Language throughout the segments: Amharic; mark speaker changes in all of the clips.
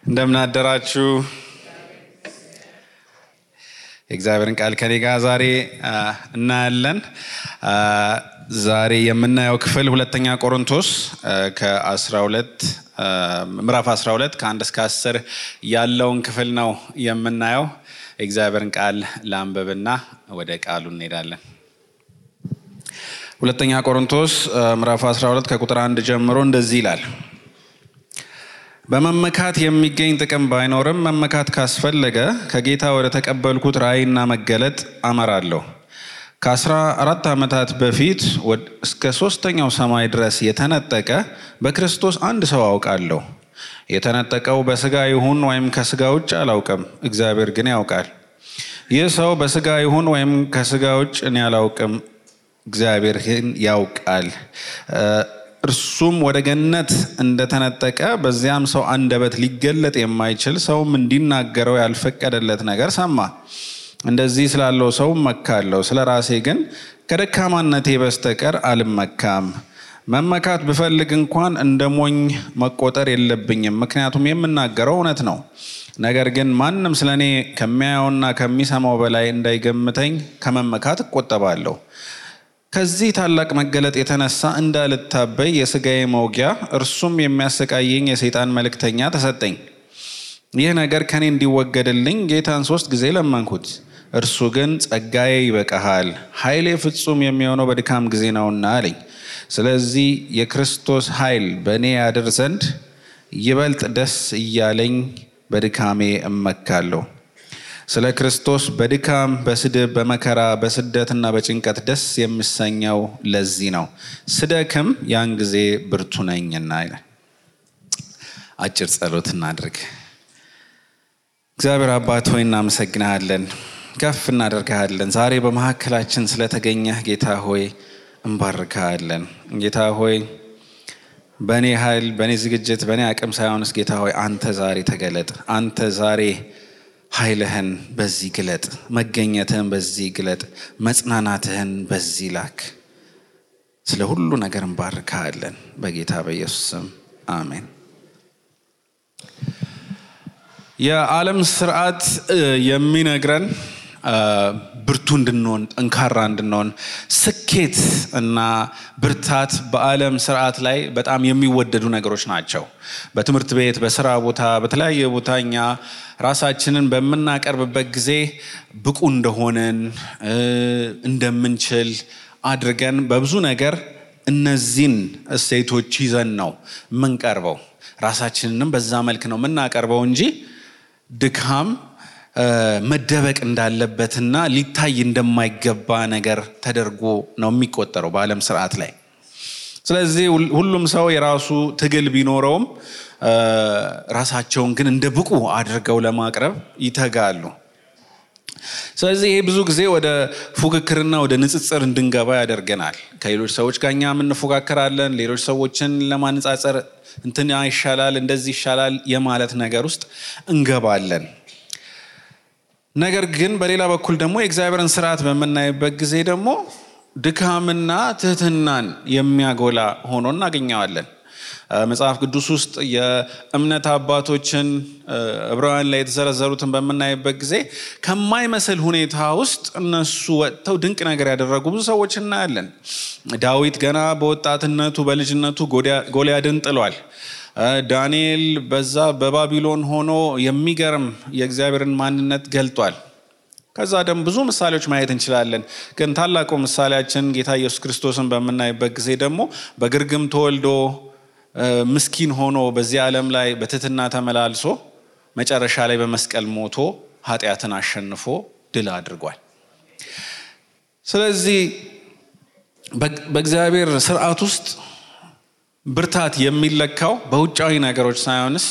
Speaker 1: እንደምን አደራችሁ። የእግዚአብሔርን ቃል ከኔ ጋር ዛሬ እናያለን። ዛሬ የምናየው ክፍል ሁለተኛ ቆሮንቶስ ከ12 ምዕራፍ 12 ከ1 እስከ 10 ያለውን ክፍል ነው የምናየው። የእግዚአብሔርን ቃል ላንብብና ወደ ቃሉ እንሄዳለን። ሁለተኛ ቆሮንቶስ ምዕራፍ 12 ከቁጥር 1 ጀምሮ እንደዚህ ይላል። በመመካት የሚገኝ ጥቅም ባይኖርም መመካት ካስፈለገ ከጌታ ወደ ተቀበልኩት ራእይና መገለጥ አመራለሁ። ከ14 ዓመታት በፊት እስከ 3ኛው ሰማይ ድረስ የተነጠቀ በክርስቶስ አንድ ሰው አውቃለሁ። የተነጠቀው በስጋ ይሁን ወይም ከስጋ ውጭ አላውቅም፣ እግዚአብሔር ግን ያውቃል። ይህ ሰው በስጋ ይሁን ወይም ከስጋ ውጭ እኔ አላውቅም፣ እግዚአብሔር ግን ያውቃል። እርሱም ወደ ገነት እንደተነጠቀ በዚያም ሰው አንደበት ሊገለጥ የማይችል ሰውም እንዲናገረው ያልፈቀደለት ነገር ሰማ። እንደዚህ ስላለው ሰው መካለሁ፣ ስለ ራሴ ግን ከደካማነቴ በስተቀር አልመካም። መመካት ብፈልግ እንኳን እንደ ሞኝ መቆጠር የለብኝም፣ ምክንያቱም የምናገረው እውነት ነው። ነገር ግን ማንም ስለኔ ከሚያየውና ከሚሰማው በላይ እንዳይገምተኝ ከመመካት እቆጠባለሁ። ከዚህ ታላቅ መገለጥ የተነሳ እንዳልታበይ የሥጋዬ መውጊያ እርሱም የሚያሰቃየኝ የሰይጣን መልእክተኛ ተሰጠኝ። ይህ ነገር ከኔ እንዲወገድልኝ ጌታን 3 ጊዜ ለመንኩት። እርሱ ግን ጸጋዬ ይበቃሃል፣ ኃይሌ ፍጹም የሚሆነው በድካም ጊዜ ነውና አለኝ። ስለዚህ የክርስቶስ ኃይል በእኔ ያድር ዘንድ ይበልጥ ደስ እያለኝ በድካሜ እመካለሁ። ስለ ክርስቶስ በድካም፣ በስድብ፣ በመከራ፣ በስደትና በጭንቀት ደስ የሚሰኘው ለዚህ ነው። ስደክም ያን ጊዜ ብርቱ ነኝና ይላል። አጭር ጸሎት እናድርግ። እግዚአብሔር አባት ሆይ እናመሰግናለን፣ ከፍ እናደርግሃለን። ዛሬ በመካከላችን ስለተገኘህ ጌታ ሆይ እንባርክሃለን። ጌታ ሆይ በእኔ ኃይል፣ በእኔ ዝግጅት፣ በእኔ አቅም ሳይሆንስ ጌታ ሆይ አንተ ዛሬ ተገለጥ። አንተ ዛሬ ኃይልህን በዚህ ግለጥ፣ መገኘትህን በዚህ ግለጥ፣ መጽናናትህን በዚህ ላክ። ስለ ሁሉ ነገር እንባርክሃለን በጌታ በኢየሱስ ስም አሜን። የዓለም ስርዓት የሚነግረን ብርቱ እንድንሆን፣ ጠንካራ እንድንሆን፣ ስኬት እና ብርታት በዓለም ስርዓት ላይ በጣም የሚወደዱ ነገሮች ናቸው። በትምህርት ቤት፣ በስራ ቦታ፣ በተለያየ ቦታ እኛ ራሳችንን በምናቀርብበት ጊዜ ብቁ እንደሆነን እንደምንችል አድርገን በብዙ ነገር እነዚህን እሴቶች ይዘን ነው የምንቀርበው። ራሳችንንም በዛ መልክ ነው የምናቀርበው እንጂ ድካም መደበቅ እንዳለበትና ሊታይ እንደማይገባ ነገር ተደርጎ ነው የሚቆጠረው በዓለም ስርዓት ላይ። ስለዚህ ሁሉም ሰው የራሱ ትግል ቢኖረውም ራሳቸውን ግን እንደ ብቁ አድርገው ለማቅረብ ይተጋሉ። ስለዚህ ይሄ ብዙ ጊዜ ወደ ፉክክርና ወደ ንጽጽር እንድንገባ ያደርገናል። ከሌሎች ሰዎች ጋር እኛ እንፎካከራለን። ሌሎች ሰዎችን ለማነጻጸር እንትን ይሻላል፣ እንደዚህ ይሻላል የማለት ነገር ውስጥ እንገባለን። ነገር ግን በሌላ በኩል ደግሞ የእግዚአብሔርን ስርዓት በምናይበት ጊዜ ደግሞ ድካምና ትህትናን የሚያጎላ ሆኖ እናገኘዋለን። መጽሐፍ ቅዱስ ውስጥ የእምነት አባቶችን ዕብራውያን ላይ የተዘረዘሩትን በምናይበት ጊዜ ከማይመስል ሁኔታ ውስጥ እነሱ ወጥተው ድንቅ ነገር ያደረጉ ብዙ ሰዎች እናያለን። ዳዊት ገና በወጣትነቱ በልጅነቱ ጎልያድን ጥሏል። ዳንኤል በዛ በባቢሎን ሆኖ የሚገርም የእግዚአብሔርን ማንነት ገልጧል። ከዛ ደግሞ ብዙ ምሳሌዎች ማየት እንችላለን። ግን ታላቁ ምሳሌያችን ጌታ ኢየሱስ ክርስቶስን በምናይበት ጊዜ ደግሞ በግርግም ተወልዶ ምስኪን ሆኖ በዚህ ዓለም ላይ በትህትና ተመላልሶ መጨረሻ ላይ በመስቀል ሞቶ ኃጢአትን አሸንፎ ድል አድርጓል። ስለዚህ በእግዚአብሔር ስርዓት ውስጥ ብርታት የሚለካው በውጫዊ ነገሮች ሳይሆንስ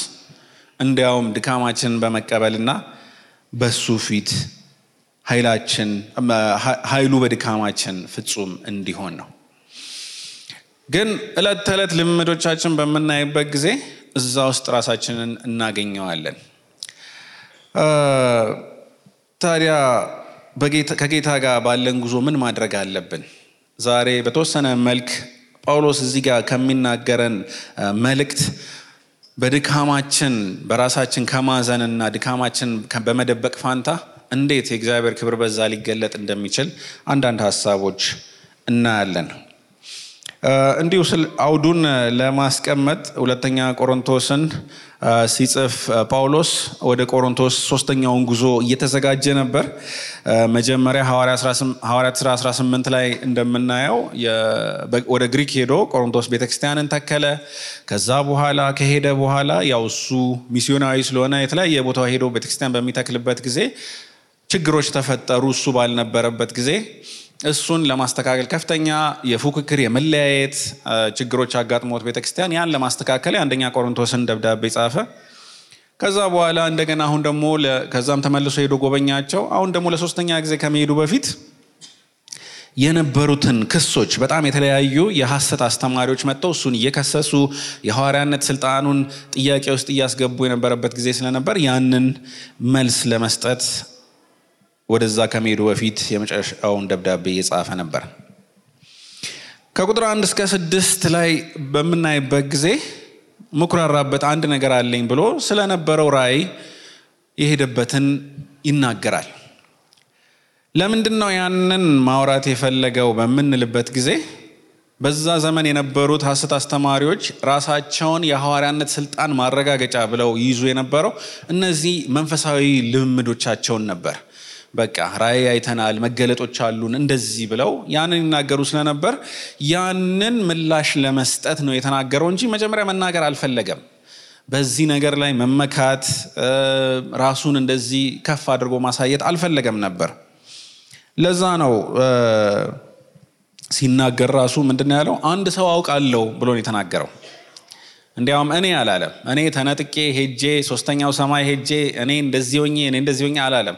Speaker 1: እንዲያውም ድካማችንን በመቀበልና በሱ ፊት ኃይሉ በድካማችን ፍጹም እንዲሆን ነው። ግን ዕለት ተዕለት ልምዶቻችን በምናይበት ጊዜ እዛ ውስጥ ራሳችንን እናገኘዋለን። ታዲያ ከጌታ ጋር ባለን ጉዞ ምን ማድረግ አለብን? ዛሬ በተወሰነ መልክ ጳውሎስ እዚህ ጋር ከሚናገረን መልእክት በድካማችን በራሳችን ከማዘንና ድካማችን በመደበቅ ፋንታ እንዴት የእግዚአብሔር ክብር በዛ ሊገለጥ እንደሚችል አንዳንድ ሐሳቦች እናያለን። እንዲሁ አውዱን ለማስቀመጥ ሁለተኛ ቆሮንቶስን ሲጽፍ ጳውሎስ ወደ ቆሮንቶስ ሶስተኛውን ጉዞ እየተዘጋጀ ነበር። መጀመሪያ ሐዋርያት ሥራ 18 ላይ እንደምናየው ወደ ግሪክ ሄዶ ቆሮንቶስ ቤተክርስቲያንን ተከለ። ከዛ በኋላ ከሄደ በኋላ ያው እሱ ሚስዮናዊ ስለሆነ የተለያየ ቦታ ሄዶ ቤተክርስቲያን በሚተክልበት ጊዜ ችግሮች ተፈጠሩ። እሱ ባልነበረበት ጊዜ እሱን ለማስተካከል ከፍተኛ የፉክክር የመለያየት ችግሮች አጋጥሞት ቤተክርስቲያን ያን ለማስተካከል አንደኛ ቆሮንቶስን ደብዳቤ ጻፈ። ከዛ በኋላ እንደገና አሁን ደግሞ ከዛም ተመልሶ ሄዶ ጎበኛቸው። አሁን ደግሞ ለሶስተኛ ጊዜ ከመሄዱ በፊት የነበሩትን ክሶች በጣም የተለያዩ የሐሰት አስተማሪዎች መጥተው እሱን እየከሰሱ የሐዋርያነት ስልጣኑን ጥያቄ ውስጥ እያስገቡ የነበረበት ጊዜ ስለነበር ያንን መልስ ለመስጠት ወደዛ ከመሄዱ በፊት የመጨረሻውን ደብዳቤ እየጻፈ ነበር። ከቁጥር 1 እስከ 6 ላይ በምናይበት ጊዜ ምኩራራበት አንድ ነገር አለኝ ብሎ ስለነበረው ራእይ የሄደበትን ይናገራል። ለምንድነው ያንን ማውራት የፈለገው በምንልበት ጊዜ በዛ ዘመን የነበሩት ሐሰት አስተማሪዎች ራሳቸውን የሐዋርያነት ስልጣን ማረጋገጫ ብለው ይዙ የነበረው እነዚህ መንፈሳዊ ልምምዶቻቸውን ነበር። በቃ ራእይ አይተናል፣ መገለጦች አሉን እንደዚህ ብለው ያንን ይናገሩ ስለነበር ያንን ምላሽ ለመስጠት ነው የተናገረው እንጂ መጀመሪያ መናገር አልፈለገም። በዚህ ነገር ላይ መመካት ራሱን እንደዚህ ከፍ አድርጎ ማሳየት አልፈለገም ነበር። ለዛ ነው ሲናገር ራሱ ምንድነው ያለው? አንድ ሰው አውቃለሁ ብሎ ነው የተናገረው። እንዲያውም እኔ አላለም። እኔ ተነጥቄ ሄጄ ሶስተኛው ሰማይ ሄጄ እኔ እንደዚህ ሆኜ አላለም።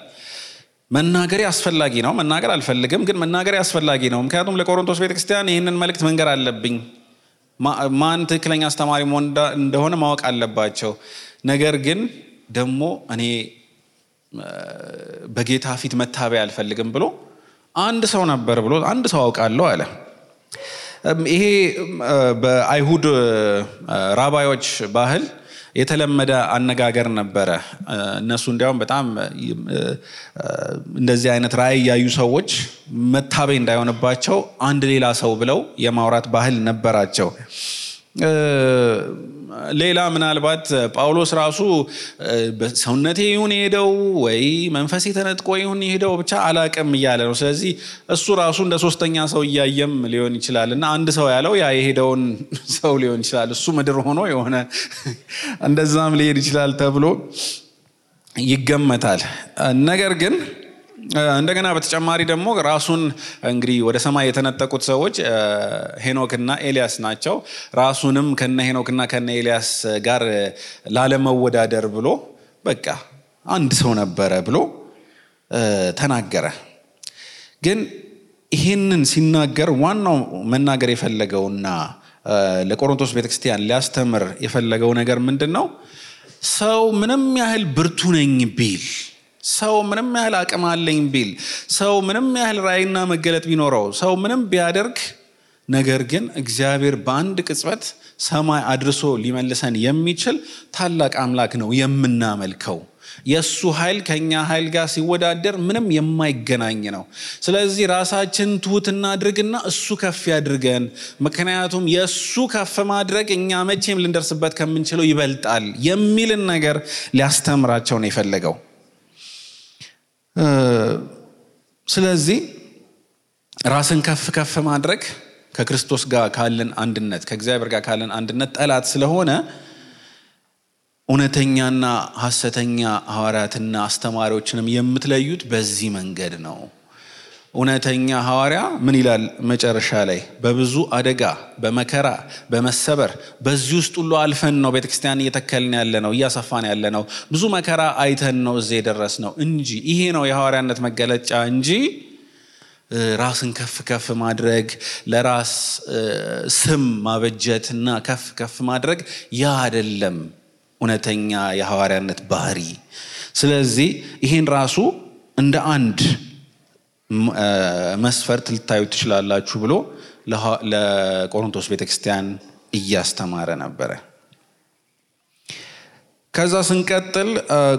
Speaker 1: መናገር አስፈላጊ ነው። መናገር አልፈልግም፣ ግን መናገር አስፈላጊ ነው። ምክንያቱም ለቆሮንቶስ ቤተክርስቲያን ይህንን መልእክት መንገር አለብኝ። ማን ትክክለኛ አስተማሪ እንደሆነ ማወቅ አለባቸው። ነገር ግን ደግሞ እኔ በጌታ ፊት መታበይ አልፈልግም ብሎ አንድ ሰው ነበር ብሎ አንድ ሰው አውቃለሁ አለ። ይሄ በአይሁድ ራባዮች ባህል የተለመደ አነጋገር ነበረ። እነሱ እንዲያውም በጣም እንደዚህ አይነት ራእይ ያዩ ሰዎች መታበይ እንዳይሆንባቸው አንድ ሌላ ሰው ብለው የማውራት ባህል ነበራቸው። ሌላ ምናልባት ጳውሎስ ራሱ በሰውነቴ ይሁን ሄደው ወይ መንፈሴ ተነጥቆ ይሁን ሄደው ብቻ አላቅም እያለ ነው። ስለዚህ እሱ ራሱ እንደ ሶስተኛ ሰው እያየም ሊሆን ይችላልና አንድ ሰው ያለው ያ የሄደውን ሰው ሊሆን ይችላል። እሱ ምድር ሆኖ የሆነ እንደዛም ሊሄድ ይችላል ተብሎ ይገመታል። ነገር ግን እንደገና በተጨማሪ ደግሞ ራሱን እንግዲህ ወደ ሰማይ የተነጠቁት ሰዎች ሄኖክና ኤልያስ ናቸው። ራሱንም ከነ ሄኖክና ከነ ኤልያስ ጋር ላለመወዳደር ብሎ በቃ አንድ ሰው ነበረ ብሎ ተናገረ። ግን ይሄንን ሲናገር ዋናው መናገር የፈለገውና ለቆሮንቶስ ቤተክርስቲያን ሊያስተምር የፈለገው ነገር ምንድነው? ሰው ምንም ያህል ብርቱ ነኝ ቢል፣ ሰው ምንም ያህል አቅም አለኝ ቢል፣ ሰው ምንም ያህል ራእይና መገለጥ ቢኖረው፣ ሰው ምንም ቢያደርግ፣ ነገር ግን እግዚአብሔር በአንድ ቅጽበት ሰማይ አድርሶ ሊመልሰን የሚችል ታላቅ አምላክ ነው የምናመልከው። የሱ ኃይል ከኛ ኃይል ጋር ሲወዳደር ምንም የማይገናኝ ነው። ስለዚህ ራሳችን ትሁትና አድርግና እሱ ከፍ ያድርገን። ምክንያቱም የሱ ከፍ ማድረግ እኛ መቼም ልንደርስበት ከምንችለው ይበልጣል የሚልን ነገር ሊያስተምራቸው ነው የፈለገው። ስለዚህ ራስን ከፍ ማድረግ ከክርስቶስ ጋር ካለን አንድነት፣ ከእግዚአብሔር ጋር ካለን አንድነት ጠላት ስለሆነ እውነተኛና ሐሰተኛ ሐዋርያትና አስተማሪዎችንም የምትለዩት በዚህ መንገድ ነው። እውነተኛ ሐዋርያ ምን ይላል መጨረሻ ላይ? በብዙ አደጋ፣ በመከራ፣ በመሰበር በዚህ ውስጥ ሁሉ አልፈን ነው ቤተክርስቲያን እየተከልን ያለ ነው፣ እያሰፋን ያለ ነው። ብዙ መከራ አይተን ነው እዚህ የደረስነው እንጂ ይሄ ነው የሐዋርያነት መገለጫ እንጂ ራስን ከፍ ማድረግ፣ ለራስ ስም ማበጀትና ከፍ ማድረግ ያ አይደለም እውነተኛ የሐዋርያነት ባህሪ። ስለዚህ ይሄን ራሱ እንደ አንድ መስፈርት ልታዩት ትችላላችሁ ብሎ ለቆሮንቶስ ቤተክርስቲያን እያስተማረ ነበረ። ከዛ ስንቀጥል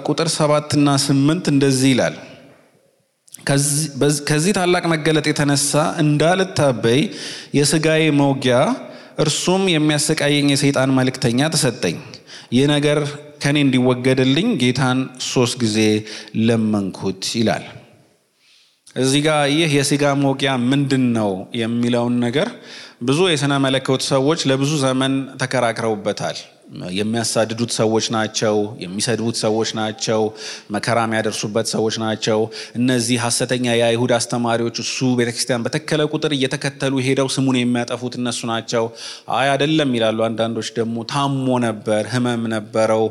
Speaker 1: ቁጥር 7 እና 8 እንደዚህ ይላል። ከዚህ ታላቅ መገለጥ የተነሳ እንዳልታበይ የሥጋዬ መውጊያ እርሱም የሚያሰቃየኝ የሰይጣን መልእክተኛ ተሰጠኝ። ይህ ነገር ከኔ እንዲወገድልኝ ጌታን 3 ጊዜ ለመንኩት ይላል። እዚህ ጋር ይህ የሥጋ መውጊያ ምንድነው የሚለውን ነገር ብዙ የሥነ መለኮት ሰዎች ለብዙ ዘመን ተከራክረውበታል። የሚያሳድዱት ሰዎች ናቸው፣ የሚሰድቡት ሰዎች ናቸው፣ መከራ የሚያደርሱበት ሰዎች ናቸው። እነዚህ ሐሰተኛ የአይሁድ አስተማሪዎች እሱ ቤተክርስቲያን በተከለ ቁጥር እየተከተሉ ሄደው ስሙን የሚያጠፉት እነሱ ናቸው። አይ አይደለም ይላሉ። አንዳንዶች ደግሞ ታሞ ነበር፣ ህመም ነበረው፣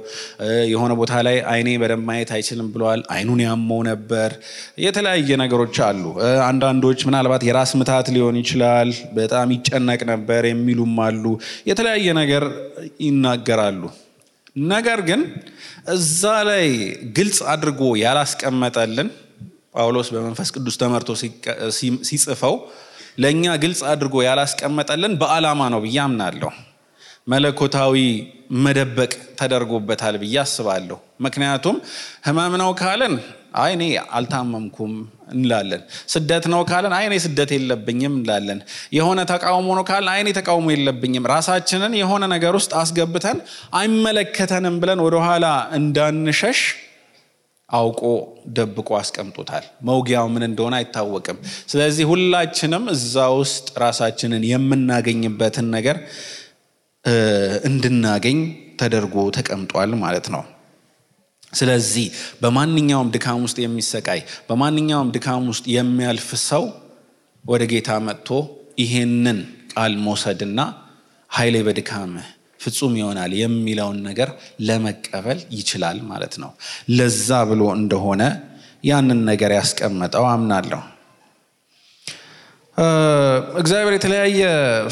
Speaker 1: የሆነ ቦታ ላይ አይኔ በደንብ ማየት አይችልም ብለዋል፣ አይኑን ያመው ነበር። የተለያየ ነገሮች አሉ። አንዳንዶች ምናልባት የራስ ምታት ሊሆን ይችላል፣ በጣም ይጨነቅ ነበር የሚሉም አሉ። የተለያየ ነገር ይናገራሉ። ነገር ግን እዛ ላይ ግልጽ አድርጎ ያላስቀመጠልን ጳውሎስ በመንፈስ ቅዱስ ተመርቶ ሲጽፈው ለኛ ግልጽ አድርጎ ያላስቀመጠልን በዓላማ ነው ብዬ አምናለሁ። መለኮታዊ መደበቅ ተደርጎበታል ብዬ አስባለሁ። ምክንያቱም ህመም ነው ካለን አይ እኔ አልታመምኩም እንላለን። ስደት ነው ካለን አይ እኔ ስደት የለብኝም እንላለን። የሆነ ተቃውሞ ነው ካለን አይ እኔ ተቃውሞ የለብኝም። ራሳችንን የሆነ ነገር ውስጥ አስገብተን አይመለከተንም ብለን ወደ ኋላ እንዳንሸሽ አውቆ ደብቆ አስቀምጦታል። መውጊያው ምን እንደሆነ አይታወቅም። ስለዚህ ሁላችንም እዛ ውስጥ ራሳችንን የምናገኝበትን ነገር እንድናገኝ ተደርጎ ተቀምጧል ማለት ነው። ስለዚህ በማንኛውም ድካም ውስጥ የሚሰቃይ በማንኛውም ድካም ውስጥ የሚያልፍ ሰው ወደ ጌታ መጥቶ ይሄንን ቃል መውሰድና ኃይሌ በድካምህ ፍጹም ይሆናል የሚለውን ነገር ለመቀበል ይችላል ማለት ነው። ለዛ ብሎ እንደሆነ ያንን ነገር ያስቀመጠው አምናለሁ። እግዚአብሔር የተለያየ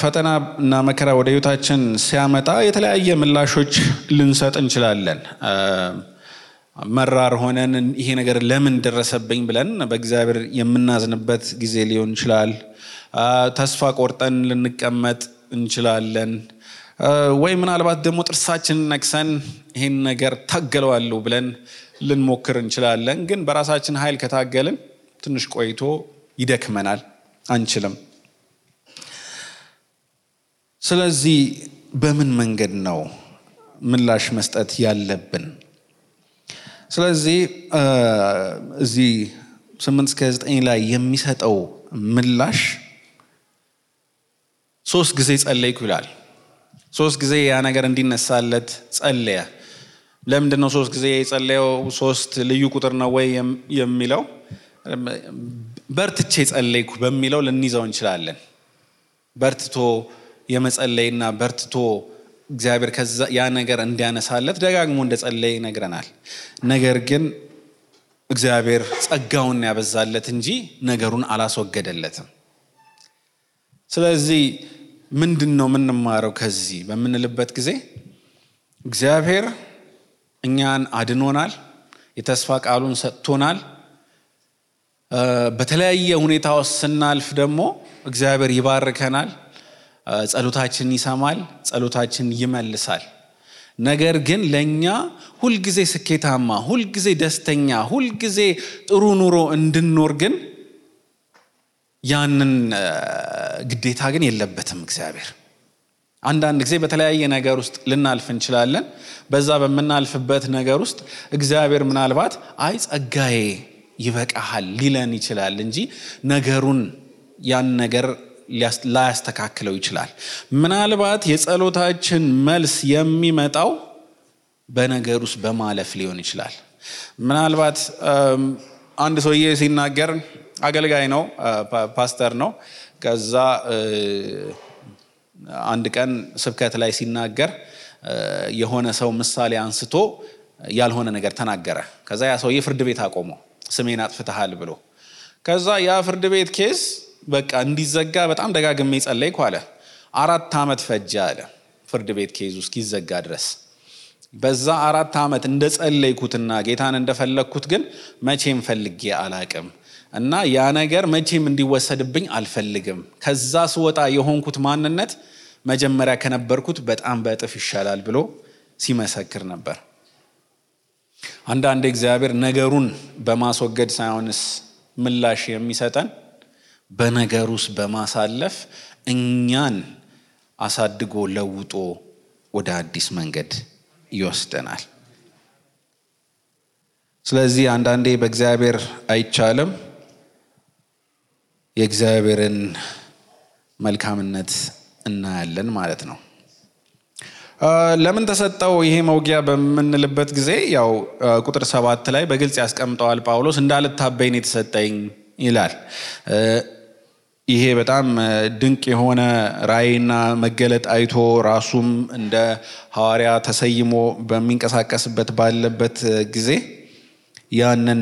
Speaker 1: ፈተና እና መከራ ወደ ህይወታችን ሲያመጣ የተለያየ ምላሾች ልንሰጥ እንችላለን። መራር ሆነን ይሄ ነገር ለምን ደረሰብኝ ብለን በእግዚአብሔር የምናዝንበት ጊዜ ሊሆን ይችላል። ተስፋ ቆርጠን ልንቀመጥ እንችላለን። ወይ ምናልባት ደግሞ ጥርሳችንን ነክሰን ይሄን ነገር ታገለዋለሁ ብለን ልንሞክር እንችላለን። ግን በራሳችን ኃይል ከታገልን ትንሽ ቆይቶ ይደክመናል፣ አንችልም። ስለዚህ በምን መንገድ ነው ምላሽ መስጠት ያለብን? ስለዚህ እዚህ 8-9 ላይ የሚሰጠው ምላሽ 3 ጊዜ ጸለይኩ ይላል። 3 ጊዜ ያ ነገር እንዲነሳለት ጸለየ። ለምንድን ነው 3 ጊዜ የጸለየው? 3 ልዩ ቁጥር ነው ወይ የሚለው በርትቼ ጸለይኩ በሚለው ልንይዘው እንችላለን። በርትቶ የመጸለይና በርትቶ እግዚአብሔር ከዛ ያ ነገር እንዲያነሳለት ደጋግሞ እንደጸለየ ይነግረናል። ነገር ግን እግዚአብሔር ጸጋውን ያበዛለት እንጂ ነገሩን አላስወገደለትም። ስለዚህ ምንድነው የምንማረው ከዚህ በምንልበት ጊዜ እግዚአብሔር እኛን አድኖናል፣ የተስፋ ቃሉን ሰጥቶናል። በተለያየ ሁኔታ ውስጥ ስናልፍ ደግሞ እግዚአብሔር ይባርከናል፣ ጸሎታችን ይሰማል፣ ጸሎታችን ይመልሳል። ነገር ግን ለኛ ሁልጊዜ ስኬታማ፣ ሁልጊዜ ደስተኛ፣ ሁልጊዜ ጥሩ ኑሮ እንድንኖር ግን ያንን ግዴታ ግን የለበትም እግዚአብሔር። አንዳንድ ጊዜ በተለያየ ነገር ውስጥ ልናልፍ እንችላለን። በዛ በመናልፍበት ነገር ውስጥ እግዚአብሔር ምናልባት አይ ጸጋዬ ይበቃሃል ሊለን ይችላል እንጂ ነገሩን ያን ነገር ላያስተካክለው ይችላል። ምናልባት የጸሎታችን መልስ የሚመጣው በነገር ውስጥ በማለፍ ሊሆን ይችላል። ምናልባት አንድ ሰውዬ ሲናገር አገልጋይ ነው፣ ፓስተር ነው። ከዛ አንድ ቀን ስብከት ላይ ሲናገር የሆነ ሰው ምሳሌ አንስቶ ያልሆነ ነገር ተናገረ። ከዛ ያ ሰውዬ ፍርድ ቤት አቆመው፣ ስሜን አጥፍተሃል ብሎ። ከዛ ያ ፍርድ ቤት ኬስ በቃ እንዲዘጋ በጣም ደጋግሜ ጸለይኩ አለ። 4 ዓመት ፈጀ አለ ፍርድ ቤት ኬዙ እስኪዘጋ ድረስ። በዛ 4 ዓመት እንደጸለይኩትና ጌታን እንደፈለኩት ግን መቼም ፈልጌ አላቅም እና ያ ነገር መቼም እንዲወሰድብኝ አልፈልግም። ከዛ ስወጣ የሆንኩት ማንነት መጀመሪያ ከነበርኩት በጣም በእጥፍ ይሻላል ብሎ ሲመሰክር ነበር። አንዳንድ እግዚአብሔር ነገሩን በማስወገድ ሳይሆንስ ምላሽ የሚሰጠን በነገሩስ በማሳለፍ እኛን አሳድጎ ለውጦ ወደ አዲስ መንገድ ይወስደናል። ስለዚህ አንዳንዴ በእግዚአብሔር አይቻልም የእግዚአብሔርን መልካምነት እናያለን ማለት ነው። ለምን ተሰጠው ይሄ መውጊያ በምንልበት ጊዜ ያው ቁጥር 7 ላይ በግልጽ ያስቀምጠዋል ጳውሎስ እንዳልታበይ ነው የተሰጠኝ ይላል። ይሄ በጣም ድንቅ የሆነ ራእይና መገለጥ አይቶ ራሱም እንደ ሐዋርያ ተሰይሞ በሚንቀሳቀስበት ባለበት ጊዜ ያንን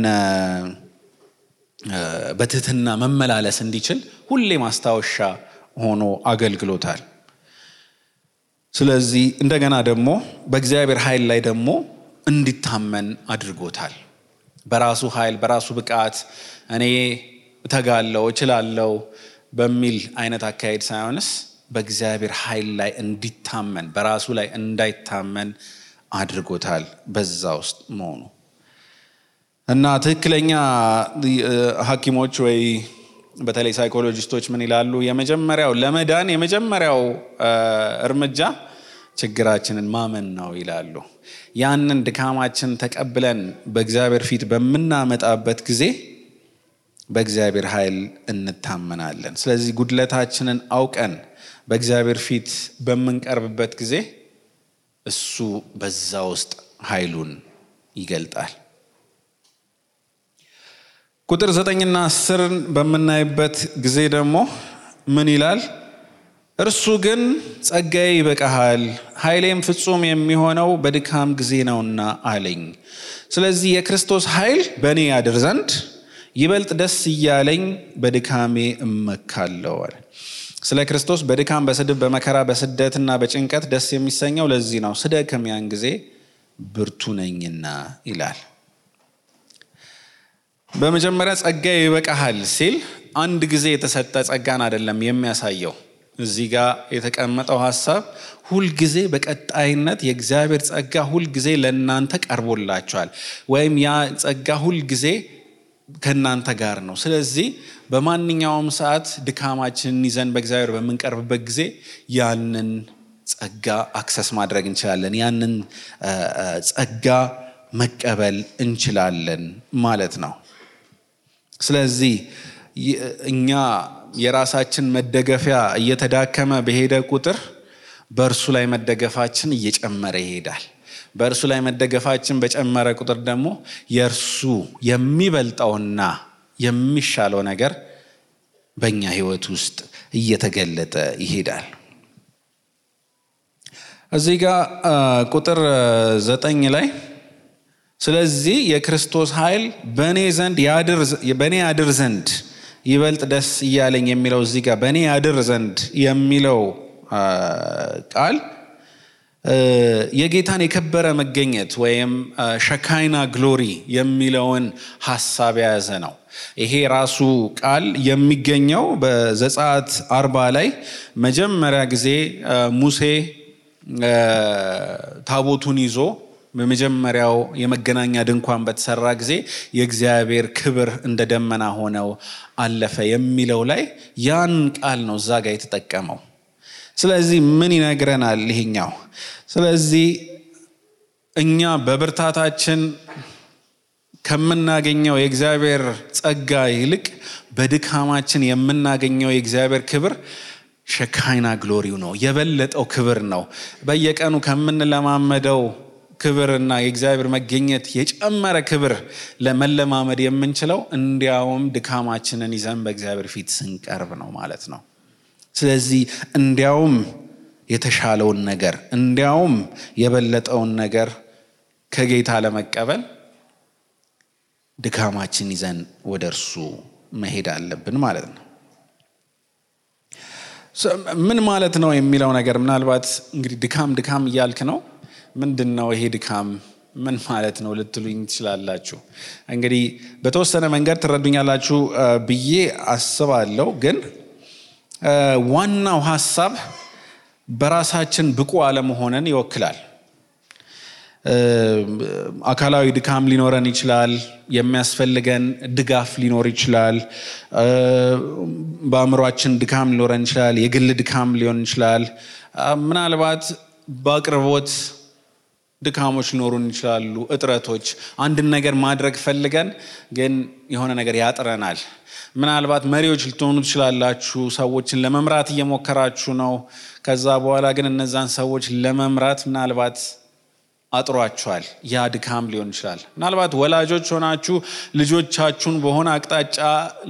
Speaker 1: በትህትና መመላለስ እንዲችል ሁሌ ማስታወሻ ሆኖ አገልግሎታል። ስለዚህ እንደገና ደግሞ በእግዚአብሔር ኃይል ላይ ደግሞ እንዲታመን አድርጎታል። በራሱ ኃይል በራሱ ብቃት እኔ እተጋለው እችላለው በሚል አይነት አካሄድ ሳይሆንስ በእግዚአብሔር ኃይል ላይ እንዲታመን በራሱ ላይ እንዳይታመን አድርጎታል በዛ ውስጥ መሆኑ እና ትክክለኛ ሐኪሞች ወይ በተለይ ሳይኮሎጂስቶች ምን ይላሉ? የመጀመሪያው ለመዳን የመጀመሪያው እርምጃ ችግራችንን ማመን ነው ይላሉ። ያንን ድካማችን ተቀብለን በእግዚአብሔር ፊት በመናመጣበት ጊዜ በእግዚአብሔር ኃይል እንታመናለን። ስለዚህ ጉድለታችንን አውቀን በእግዚአብሔር ፊት በመንቀርብበት ጊዜ እሱ በዛ ውስጥ ኃይሉን ይገልጣል። ቁጥር 9 እና 10 በመናይበት ጊዜ ደግሞ ምን ይላል? እርሱ ግን ጸጋዬ ይበቃሃል ኃይሌም ፍጹም የሚሆነው በድካም ጊዜ ነውና አለኝ። ስለዚህ የክርስቶስ ኃይል በእኔ ያድር ዘንድ ይበልጥ ደስ እያለኝ በድካሜ እመካለሁ አለ። ስለ ክርስቶስ በድካም በስድብ በመከራ በስደትና በጭንቀት ደስ የሚሰኘው ለዚህ ነው፣ ስደክም ያን ጊዜ ብርቱ ነኝና ይላል። በመጀመሪያ ጸጋዬ ይበቃሃል ሲል አንድ ጊዜ የተሰጠ ጸጋን አይደለም የሚያሳየው። እዚህ ጋር የተቀመጠው ሐሳብ ሁል ጊዜ በቀጣይነት የእግዚአብሔር ጸጋ ሁል ጊዜ ለእናንተ ቀርቦላችኋል ወይም ያ ጸጋ ሁል ጊዜ ከእናንተ ጋር ነው። ስለዚህ በማንኛውም ሰዓት ድካማችንን ይዘን በእግዚአብሔር በመንቀርብበት ጊዜ ያንን ጸጋ አክሰስ ማድረግ እንችላለን፣ ያንን ጸጋ መቀበል እንችላለን ማለት ነው። ስለዚህ እኛ የራሳችን መደገፊያ እየተዳከመ በሄደ ቁጥር በእርሱ ላይ መደገፋችን እየጨመረ ይሄዳል። በእርሱ ላይ መደገፋችን በጨመረ ቁጥር ደግሞ የእርሱ የሚበልጠውና የሚሻለው ነገር በእኛ ሕይወት ውስጥ እየተገለጠ ይሄዳል። እዚህ ጋር ቁጥር 9 ላይ ስለዚህ የክርስቶስ ኃይል በእኔ ያድር ዘንድ ይበልጥ ደስ እያለኝ የሚለው እዚህ ጋር በእኔ ያድር ዘንድ የሚለው ቃል የጌታን የከበረ መገኘት ወይም ሸካይና ግሎሪ የሚለውን ሐሳብ የያዘ ነው። ይሄ ራሱ ቃል የሚገኘው በዘጸአት 40 ላይ መጀመሪያ ጊዜ ሙሴ ታቦቱን ይዞ በመጀመሪያው የመገናኛ ድንኳን በተሰራ ጊዜ የእግዚአብሔር ክብር እንደ ደመና ሆነው አለፈ የሚለው ላይ ያን ቃል ነው እዛ ጋር የተጠቀመው። ስለዚህ ምን ይነግረናል ይሄኛው? ስለዚህ እኛ በብርታታችን ከምናገኘው የእግዚአብሔር ጸጋ ይልቅ በድካማችን የምናገኘው የእግዚአብሔር ክብር ሸካይና ግሎሪው ነው፣ የበለጠው ክብር ነው። በየቀኑ ከምንለማመደው ክብርና የእግዚአብሔር መገኘት የጨመረ ክብር ለመለማመድ የምንችለው እንዲያውም ድካማችንን ይዘን በእግዚአብሔር ፊት ስንቀርብ ነው ማለት ነው። ስለዚህ እንዲያውም የተሻለውን ነገር እንዲያውም የበለጠውን ነገር ከጌታ ለመቀበል ድካማችን ይዘን ወደ እርሱ መሄድ አለብን ማለት ነው። ምን ማለት ነው የሚለው ነገር ምናልባት እንግዲህ ድካም እያልክ ነው፣ ምንድነው ይሄ ድካም ምን ማለት ነው ልትሉኝ ትችላላችሁ። እንግዲህ በተወሰነ መንገድ ትረዱኛላችሁ ብዬ አስባለሁ። ግን ዋናው ሐሳብ በራሳችን ብቁ አለመሆንን ይወክላል። አካላዊ ድካም ሊኖረን ይችላል። የሚያስፈልገን ድጋፍ ሊኖር ይችላል። በአእምሯችን ድካም ሊኖረን ይችላል። የግል ድካም ሊሆን ይችላል። ምናልባት በአቅርቦት ድካሞች ሊኖሩን ይችላሉ። እጥረቶች፣ አንድን ነገር ማድረግ ፈልገን ግን የሆነ ነገር ያጥረናል። ምናልባት መሪዎች ልትሆኑ ትችላላችሁ። ሰዎችን ለመምራት እየሞከራችሁ ነው። ከዛ በኋላ ግን እነዛን ሰዎች ለመምራት ምናልባት አጥሯችኋል። ያ ድካም ሊሆን ይችላል። ምናልባት ወላጆች ሆናችሁ ልጆቻችሁን በሆነ አቅጣጫ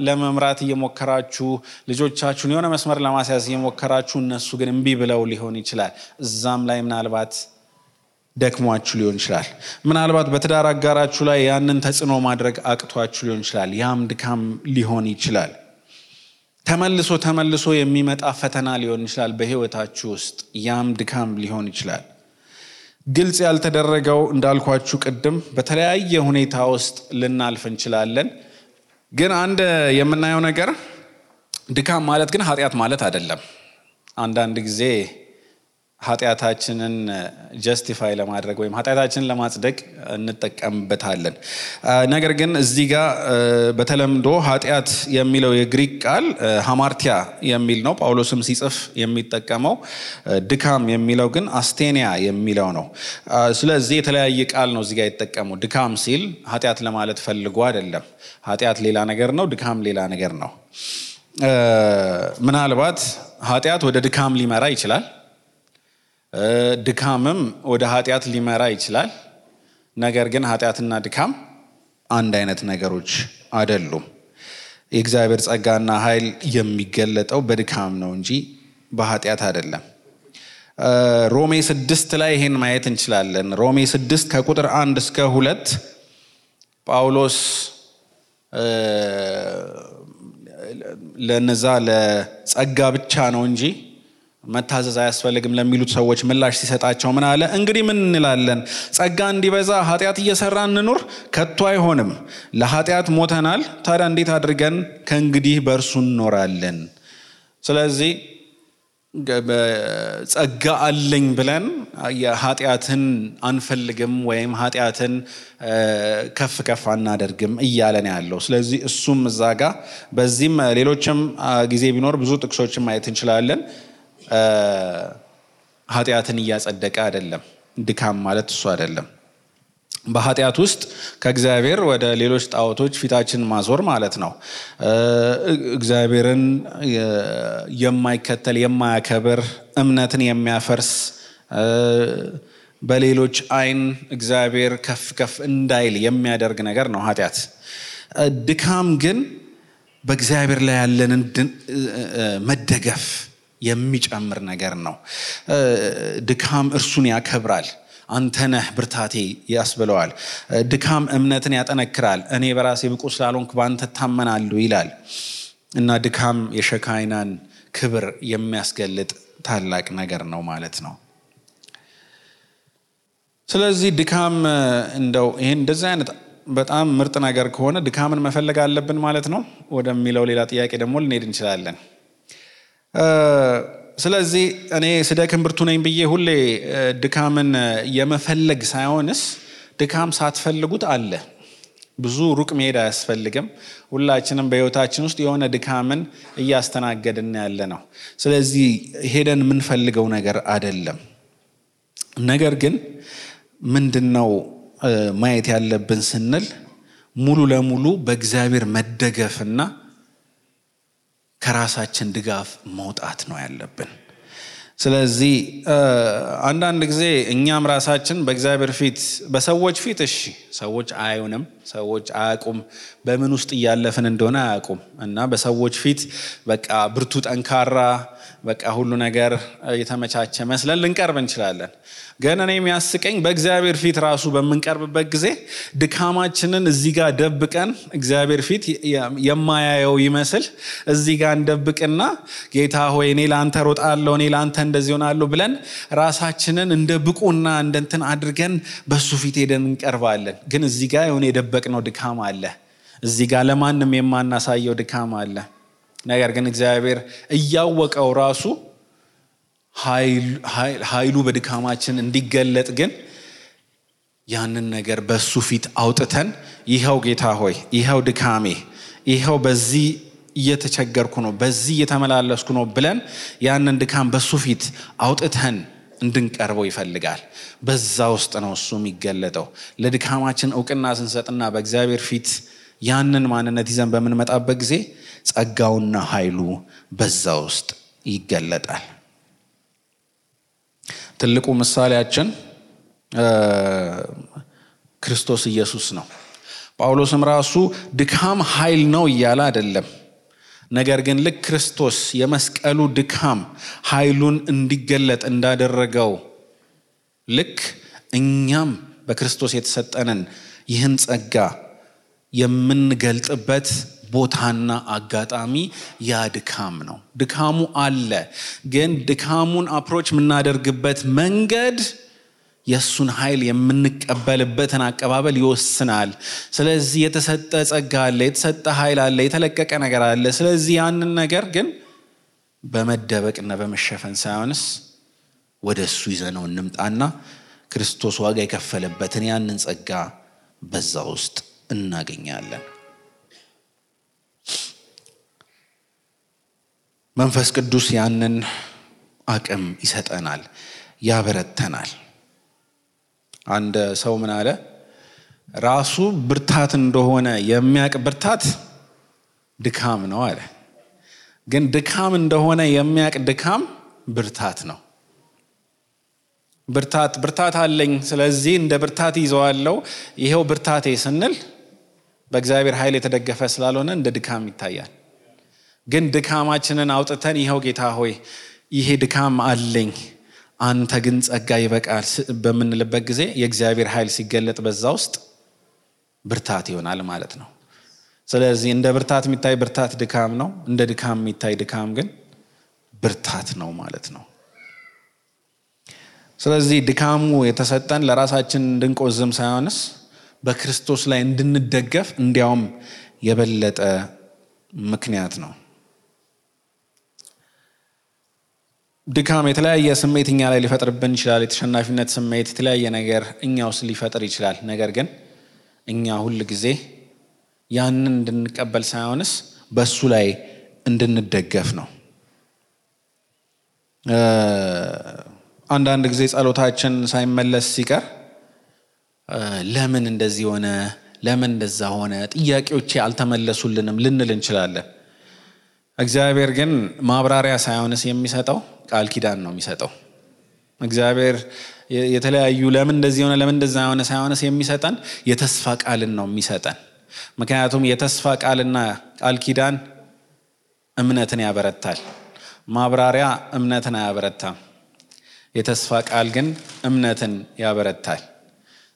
Speaker 1: ለመምራት እየሞከራችሁ፣ ልጆቻችሁን የሆነ መስመር ለማስያዝ እየሞከራችሁ፣ እነሱ ግን እምቢ ብለው ሊሆን ይችላል። እዛም ላይ ምናልባት ደክሟችሁ ሊሆን ይችላል። ምናልባት በትዳር አጋራችሁ ላይ ያንን ተጽዕኖ ማድረግ አቅቷችሁ ሊሆን ይችላል። ያም ድካም ሊሆን ይችላል። ተመልሶ የሚመጣ ፈተና ሊሆን ይችላል በህይወታችሁ ውስጥ። ያም ድካም ሊሆን ይችላል። ግልጽ ያልተደረገው እንዳልኳችሁ ቅድም በተለያየ ሁኔታ ውስጥ ልናልፍ እንችላለን። ግን አንድ የምናየው ነገር ድካም ማለት ግን ኃጢአት ማለት አይደለም። አንዳንድ ጊዜ ኃጢአታችንን ጀስቲፋይ ለማድረግ ወይም ኃጢአታችንን ለማጽደቅ እንጠቀምበታለን። ነገር ግን እዚህ ጋር በተለምዶ ኃጢአት የሚለው የግሪክ ቃል ሃማርቲያ የሚል ነው። ጳውሎስም ሲጽፍ የሚጠቀመው ድካም የሚለው ግን አስቴኒያ የሚለው ነው። ስለዚህ የተለያየ ቃል ነው እዚህ ጋር የተጠቀመው። ድካም ሲል ኃጢአት ለማለት ፈልጎ አይደለም። ኃጢአት ሌላ ነገር ነው፣ ድካም ሌላ ነገር ነው። ምናልባት ኃጢአት ወደ ድካም ሊመራ ይችላል፣ ድካምም ወደ ኃጢአት ሊመራ ይችላል። ነገር ግን ኃጢአትና ድካም አንድ አይነት ነገሮች አይደሉም። የእግዚአብሔር ጸጋና ኃይል የሚገለጠው በድካም ነው እንጂ በኃጢአት አይደለም። ሮሜ 6 ላይ ይሄን ማየት እንችላለን። ሮሜ 6 ከቁጥር 1 እስከ 2 ጳውሎስ ለነዛ ለጸጋ ብቻ ነው እንጂ መታዘዝ አያስፈልግም ለሚሉት ሰዎች ምላሽ ሲሰጣቸው ምን አለ? እንግዲህ ምን እንላለን? ጸጋ እንዲበዛ ኃጢአት እየሰራን እንኑር? ከቶ አይሆንም። ለኃጢአት ሞተናል፣ ታዲያ እንዴት አድርገን ከእንግዲህ በእርሱ እንኖራለን? ስለዚህ ጸጋ አለኝ ብለን ኃጢአትን አንፈልግም ወይም ኃጢአትን ከፍ ከፍ አናደርግም እያለን ያለው። ስለዚህ እሱም እዛ ጋ በዚህም ሌሎችም ጊዜ ቢኖር ብዙ ጥቅሶችን ማየት እንችላለን። ኃጢአትን እያጸደቀ አይደለም። ድካም ማለት እሱ አይደለም። በኃጢአት ውስጥ ከእግዚአብሔር ወደ ሌሎች ጣዖቶች ፊታችን ማዞር ማለት ነው። እግዚአብሔርን የማይከተል የማያከብር፣ እምነትን የሚያፈርስ፣ በሌሎች አይን እግዚአብሔር ከፍ ከፍ እንዳይል የሚያደርግ ነገር ነው ኃጢአት። ድካም ግን በእግዚአብሔር ላይ ያለንን መደገፍ የሚጨምር ነገር ነው። ድካም እርሱን ያከብራል። አንተ ነህ ብርታቴ ያስብለዋል። ድካም እምነትን ያጠነክራል። እኔ በራሴ ብቁ ስላልሆንኩ በአንተ እታመናለሁ ይላል እና ድካም የሸካይናን ክብር የሚያስገልጥ ታላቅ ነገር ነው ማለት ነው። ስለዚህ ድካም እንደው ይሄን እንደዚህ አይነት በጣም ምርጥ ነገር ከሆነ ድካምን መፈለግ አለብን ማለት ነው ወደሚለው ሌላ ጥያቄ ደግሞ ልንሄድ እንችላለን። ስለዚህ እኔ ስደክም ብርቱ ነኝ ብዬ ሁሌ ድካምን የመፈለግ ሳይሆንስ ድካም ሳትፈልጉት አለ። ብዙ ሩቅ መሄድ አያስፈልግም። ሁላችንም በህይወታችን ውስጥ የሆነ ድካምን እያስተናገድን ያለ ነው። ስለዚህ ሄደን የምንፈልገው ነገር አይደለም። ነገር ግን ምንድነው ማየት ያለብን ስንል ሙሉ ለሙሉ በእግዚአብሔር መደገፍና ከራሳችን ድጋፍ መውጣት ነው ያለብን። ስለዚህ አንዳንድ ጊዜ እኛም ራሳችን በእግዚአብሔር ፊት በሰዎች ፊት እሺ ሰዎች አያዩንም፣ ሰዎች አያውቁም፣ በምን ውስጥ እያለፍን እንደሆነ አያውቁም እና በሰዎች ፊት በቃ ብርቱ ጠንካራ በቃ ሁሉ ነገር የተመቻቸ መስለን ልንቀርብ እንችላለን። ግን እኔ የሚያስቀኝ በእግዚአብሔር ፊት ራሱ በምንቀርብበት ጊዜ ድካማችንን እዚህ ጋር ደብቀን እግዚአብሔር ፊት የማያየው ይመስል እዚህ ጋር እንደብቅና ጌታ ሆይ እኔ ላንተ ሮጣለሁ፣ እኔ ላንተ እንደዚህ ሆናለሁ ብለን ራሳችንን እንደ ብቁና እንደንትን አድርገን በሱ ፊት ሄደን እንቀርባለን። ግን እዚህ ጋር የሆነ የደበቅነው ድካም አለ። እዚህ ጋር ለማንም የማናሳየው ድካም አለ። ነገር ግን እግዚአብሔር እያወቀው ራሱ ኃይሉ በድካማችን እንዲገለጥ ግን ያንን ነገር በሱ ፊት አውጥተን ይሄው ጌታ ሆይ ይሄው ድካሜ ይሄው በዚህ እየተቸገርኩ ነው በዚህ እየተመላለስኩ ነው ብለን ያንን ድካም በሱ ፊት አውጥተን እንድንቀርበው ይፈልጋል። በዛ ውስጥ ነው እሱ የሚገለጠው። ለድካማችን ዕውቅና ስንሰጥና በእግዚአብሔር ፊት ያንን ማንነት ይዘን በምንመጣበት ጊዜ ጸጋውና ኃይሉ በዛ ውስጥ ይገለጣል። ትልቁ ምሳሌያችን ክርስቶስ ኢየሱስ ነው። ጳውሎስም ራሱ ድካም ኃይል ነው እያለ አይደለም። ነገር ግን ልክ ክርስቶስ የመስቀሉ ድካም ኃይሉን እንዲገለጥ እንዳደረገው ልክ እኛም በክርስቶስ የተሰጠንን ይህን ጸጋ የምንገልጥበት ቦታና አጋጣሚ ያ ድካም ነው። ድካሙ አለ፣ ግን ድካሙን አፕሮች የምናደርግበት መንገድ የሱን ኃይል የምንቀበልበትን አቀባበል ይወስናል። ስለዚህ የተሰጠ ጸጋ አለ፣ የተሰጠ ኃይል አለ፣ የተለቀቀ ነገር አለ። ስለዚህ ያንን ነገር ግን በመደበቅና በመሸፈን ሳይሆንስ ወደሱ ይዘነው እንምጣና ክርስቶስ ዋጋ የከፈለበትን ያንን ጸጋ በዛ ውስጥ እናገኛለን። መንፈስ ቅዱስ ያንን አቅም ይሰጠናል፣ ያበረተናል። አንድ ሰው ምን አለ? ራሱ ብርታት እንደሆነ የሚያውቅ ብርታት ድካም ነው አለ። ግን ድካም እንደሆነ የሚያውቅ ድካም ብርታት ነው። ብርታት አለኝ ስለዚህ እንደ ብርታት ይዘዋለሁ ይሄው ብርታቴ ስንል በእግዚአብሔር ኃይል የተደገፈ ስላልሆነ እንደ ድካም ይታያል። ግን ድካማችንን አውጥተን ይሄው ጌታ ሆይ ይሄ ድካም አለኝ አንተ ግን ጸጋ ይበቃል በምንልበት ጊዜ የእግዚአብሔር ኃይል ሲገለጥ በዛ ውስጥ ብርታት ይሆናል ማለት ነው። ስለዚህ እንደ ብርታት የሚታይ ብርታት ድካም ነው፣ እንደ ድካም የሚታይ ድካም ግን ብርታት ነው ማለት ነው። ስለዚህ ድካሙ የተሰጠን ለራሳችን እንድንቆዝም ሳይሆንስ በክርስቶስ ላይ እንድንደገፍ እንዲያውም የበለጠ ምክንያት ነው። ድካም የተለያየ ስሜት እኛ ላይ ሊፈጥርብን ይችላል። የተሸናፊነት ስሜት፣ የተለያየ ነገር እኛ ውስጥ ሊፈጥር ይችላል። ነገር ግን እኛ ሁል ጊዜ ያንን እንድንቀበል ሳይሆንስ በሱ ላይ እንድንደገፍ ነው። አንዳንድ ጊዜ ጸሎታችን ሳይመለስ ሲቀር ለምን እንደዚህ ሆነ፣ ለምን እንደዛ ሆነ፣ ጥያቄዎቼ አልተመለሱልንም ልንል እንችላለን። እግዚአብሔር ግን ማብራሪያ ሳይሆንስ የሚሰጠው ቃል ኪዳን ነው የሚሰጠው። እግዚአብሔር የተለያዩ ለምን እንደዚህ ሆነ ለምን እንደዛ ሆነ ሳይሆንስ የሚሰጠን የተስፋ ቃልን ነው የሚሰጠን። ምክንያቱም የተስፋ ቃልና ቃል ኪዳን እምነትን ያበረታል። ማብራሪያ እምነትን አያበረታም። የተስፋ ቃል ግን እምነትን ያበረታል።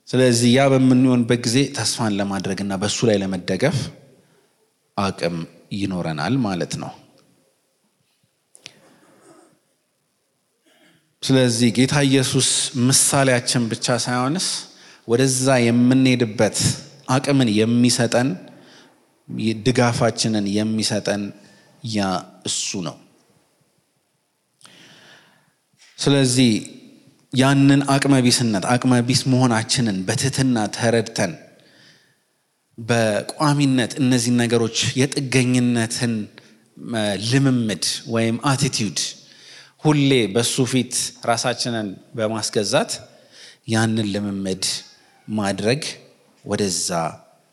Speaker 1: ስለዚህ ያ በምንሆንበት ጊዜ ተስፋን ለማድረግና በሱ ላይ ለመደገፍ አቅም ይኖረናል ማለት ነው። ስለዚህ ጌታ ኢየሱስ ምሳሌያችን ብቻ ሳይሆንስ ወደዛ የምንሄድበት አቅምን የሚሰጠን ድጋፋችንን የሚሰጠን ያ እሱ ነው። ስለዚህ ያንን አቅመቢስ መሆናችንን በትህትና ተረድተን በቋሚነት እነዚህ ነገሮች የጥገኝነትን ልምምድ ወይም አቲቲዩድ ሁሌ በሱ ፊት ራሳችንን በማስገዛት ያንን ልምምድ ማድረግ ወደዛ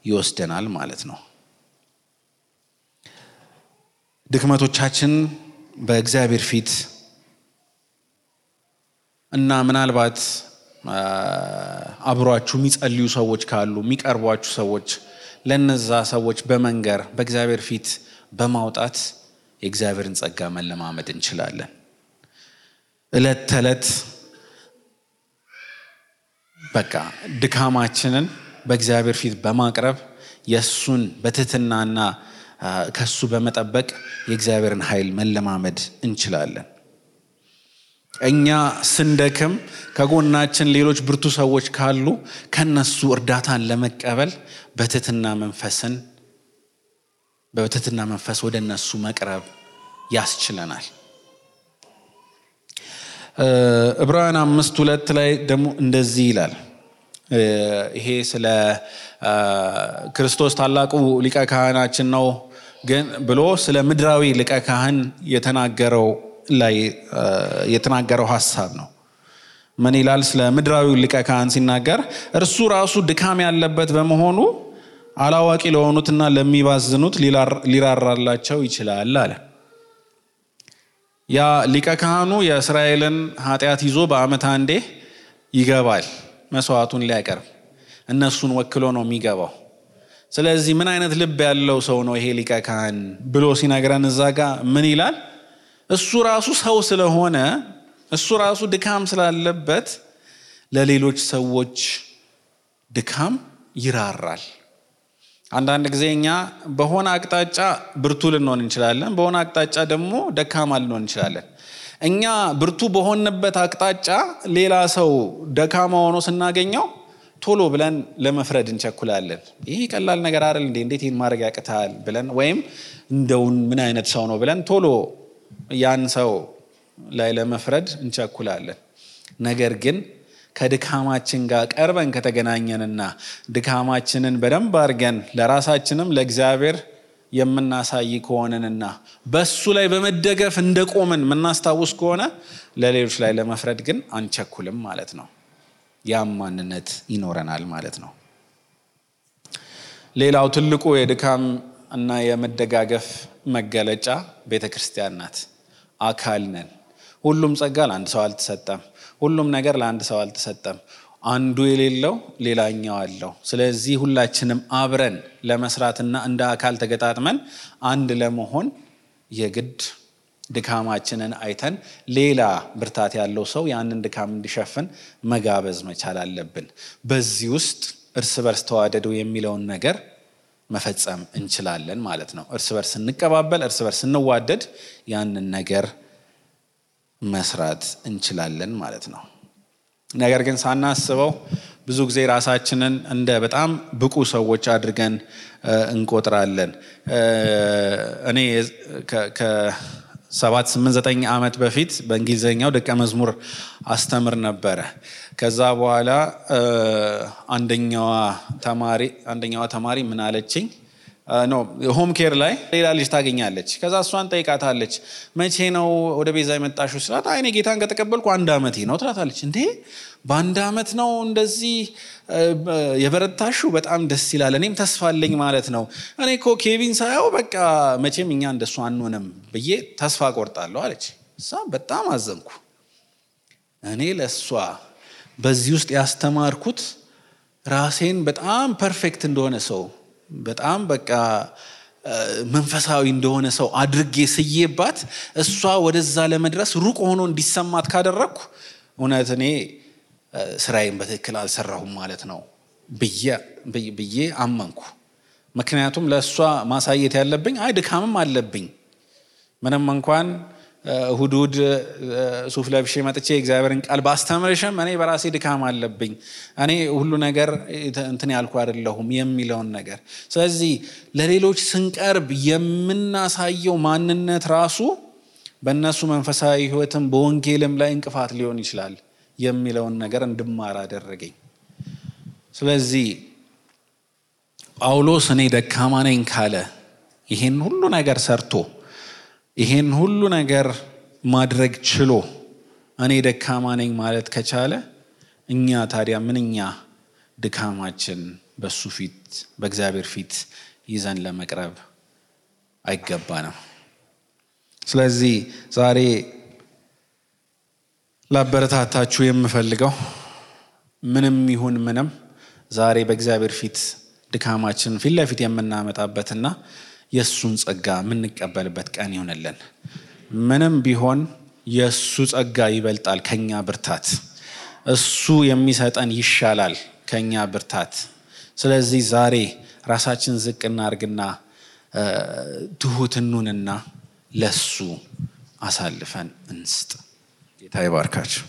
Speaker 1: ይወስደናል ማለት ነው። ድክመቶቻችን በእግዚአብሔር ፊት እና ምናልባት አብሯችሁ የሚጸልዩ ሰዎች ካሉ የሚቀርቧችሁ ሰዎች ለነዛ ሰዎች በመንገር በእግዚአብሔር ፊት በማውጣት የእግዚአብሔርን ጸጋ መለማመድ እንችላለን። እለት ተለት በቃ ድካማችንን በእግዚአብሔር ፊት በማቅረብ የሱን በትህትናና ከሱ በመጠበቅ የእግዚአብሔርን ኃይል መለማመድ እንችላለን። እኛ ስንደክም ከጎናችን ሌሎች ብርቱ ሰዎች ካሉ ከነሱ እርዳታን ለመቀበል በትህትና መንፈስ ወደ እነሱ መቅረብ ያስችለናል። ዕብራውያን 5:2 ላይ ደግሞ እንደዚህ ይላል፣ ይሄ ስለ ክርስቶስ ታላቁ ሊቀ ካህናችን ነው ግን ብሎ ስለ ምድራዊ ሊቀ ካህን የተናገረው ሐሳብ ነው። ምን ይላል? ስለ ምድራዊ ሊቀ ካህን ሲናገር እርሱ ራሱ ድካም ያለበት በመሆኑ አላዋቂ ለሆኑትና ለሚባዝኑት ሊራራላቸው ይችላል አለ። ያ ሊቀ ካህኑ የእስራኤልን ኃጢአት ይዞ በዓመት አንዴ ይገባል መስዋዕቱን ሊያቀርብ፣ እነሱን ወክሎ ነው የሚገባው። ስለዚህ ምን አይነት ልብ ያለው ሰው ነው ይሄ ሊቀ ካህን ብሎ ሲነግረን እዛ ጋር ምን ይላል? እሱ ራሱ ሰው ስለሆነ እሱ ራሱ ድካም ስላለበት ለሌሎች ሰዎች ድካም ይራራል። አንዳንድ ጊዜ እኛ በሆነ አቅጣጫ ብርቱ ልንሆን እንችላለን፣ በሆነ አቅጣጫ ደግሞ ደካማ ልንሆን እንችላለን። እኛ ብርቱ በሆንበት አቅጣጫ ሌላ ሰው ደካማ ሆኖ ስናገኘው ቶሎ ብለን ለመፍረድ እንቸኩላለን። ይሄ ቀላል ነገር አይደል እንዴ? እንዴት ይሄን ማድረግ ያቅታል ብለን፣ ወይም እንደውን ምን አይነት ሰው ነው ብለን ቶሎ ያን ሰው ላይ ለመፍረድ እንቸኩላለን። ነገር ግን ከድካማችን ጋር ቀርበን ከተገናኘንና ድካማችንን በደንብ አድርገን ለራሳችንም ለእግዚአብሔር የምናሳይ ከሆነንና በሱ ላይ በመደገፍ እንደቆምን የምናስታውስ ከሆነ ለሌሎች ላይ ለመፍረድ ግን አንቸኩልም ማለት ነው። ያም ማንነት ይኖረናል ማለት ነው። ሌላው ትልቁ የድካም እና የመደጋገፍ መገለጫ ቤተክርስቲያን ናት። አካል ነን። ሁሉም ጸጋ ለአንድ ሰው አልተሰጠም። ሁሉም ነገር ለአንድ ሰው አልተሰጠም። አንዱ የሌለው ሌላኛው አለው። ስለዚህ ሁላችንም አብረን ለመስራትና እንደ አካል ተገጣጥመን አንድ ለመሆን የግድ ድካማችንን አይተን ሌላ ብርታት ያለው ሰው ያንን ድካም እንዲሸፍን መጋበዝ መቻል አለብን። በዚህ ውስጥ እርስ በርስ ተዋደዱ የሚለውን ነገር መፈጸም እንችላለን ማለት ነው። እርስ በርስ እንቀባበል፣ እርስ በርስ እንዋደድ፣ ያንን ነገር መስራት እንችላለን ማለት ነው። ነገር ግን ሳናስበው ብዙ ጊዜ ራሳችንን እንደ በጣም ብቁ ሰዎች አድርገን እንቆጥራለን። እኔ ከ7-8-9 ዓመት በፊት በእንግሊዘኛው ደቀ መዝሙር አስተምር ነበረ። ከዛ በኋላ አንደኛዋ ተማሪ ምን አለችኝ? ሆም ኬር ላይ ሌላ ልጅ ታገኛለች። ከዛ እሷን ጠይቃታለች፣ መቼ ነው ወደ ቤዛ የመጣሽው ስላት፣ እኔ ጌታን ከተቀበልኩ 1 ዓመቴ ነው ትላታለች። እንዴ በ1 ዓመት ነው እንደዚህ የበረታሽው? በጣም ደስ ይላል። እኔም ተስፋ አለኝ ማለት ነው። እኔ እኮ ኬቪን ሳየው በቃ መቼም እኛ እንደሱ አንሆንም ብዬ ተስፋ ቆርጣለሁ አለች። እሷ በጣም አዘንኩ። እኔ ለሷ በዚህ ውስጥ ያስተማርኩት ራሴን በጣም ፐርፌክት እንደሆነ ሰው፣ በጣም በቃ መንፈሳዊ እንደሆነ ሰው አድርጌ ስዬባት እሷ ወደዛ ለመድረስ ሩቅ ሆኖ እንዲሰማት ካደረኩ እውነት እኔ ስራዬን በትክክል አልሰራሁም ማለት ነው ብዬ አመንኩ። ምክንያቱም ለእሷ ማሳየት ያለብኝ ድካምም አለብኝ። ምንም እንኳን እሁድ ሱፍ ለብሼ መጥቼ እግዚአብሔርን ቃል ባስተምርሽም እኔ በራሴ ድካም አለብኝ፣ እኔ ሁሉ ነገር እንትን ያልኩ አይደለሁም የሚለውን ነገር። ስለዚህ ለሌሎች ስንቀርብ የምናሳየው ማንነት ራሱ በእነሱ መንፈሳዊ ሕይወትም በወንጌልም ላይ እንቅፋት ሊሆን ይችላል የሚለውን ነገር እንድማር አደረገኝ። ስለዚህ ጳውሎስ እኔ ደካማ ነኝ ካለ ይሄን ሁሉ ነገር ሰርቶ ይሄን ሁሉ ነገር ማድረግ ችሎ እኔ ደካማ ነኝ ማለት ከቻለ እኛ ታዲያ ምንኛ ድካማችን በሱ ፊት በእግዚአብሔር ፊት ይዘን ለመቅረብ አይገባንም። ስለዚህ ዛሬ ላበረታታችሁ የምፈልገው ምንም ይሁን ምንም ዛሬ በእግዚአብሔር ፊት ድካማችን ፊት ለፊት የምናመጣበትና የሱን ጸጋ የምንቀበልበት ቀን ይሆነልን። ምንም ቢሆን የሱ ጸጋ ይበልጣል ከኛ ብርታት። እሱ የሚሰጠን ይሻላል ከኛ ብርታት። ስለዚህ ዛሬ ራሳችን ዝቅ እናርግና ትሁት እንሁንና ለሱ አሳልፈን እንስጥ። ጌታ ይባርካችሁ።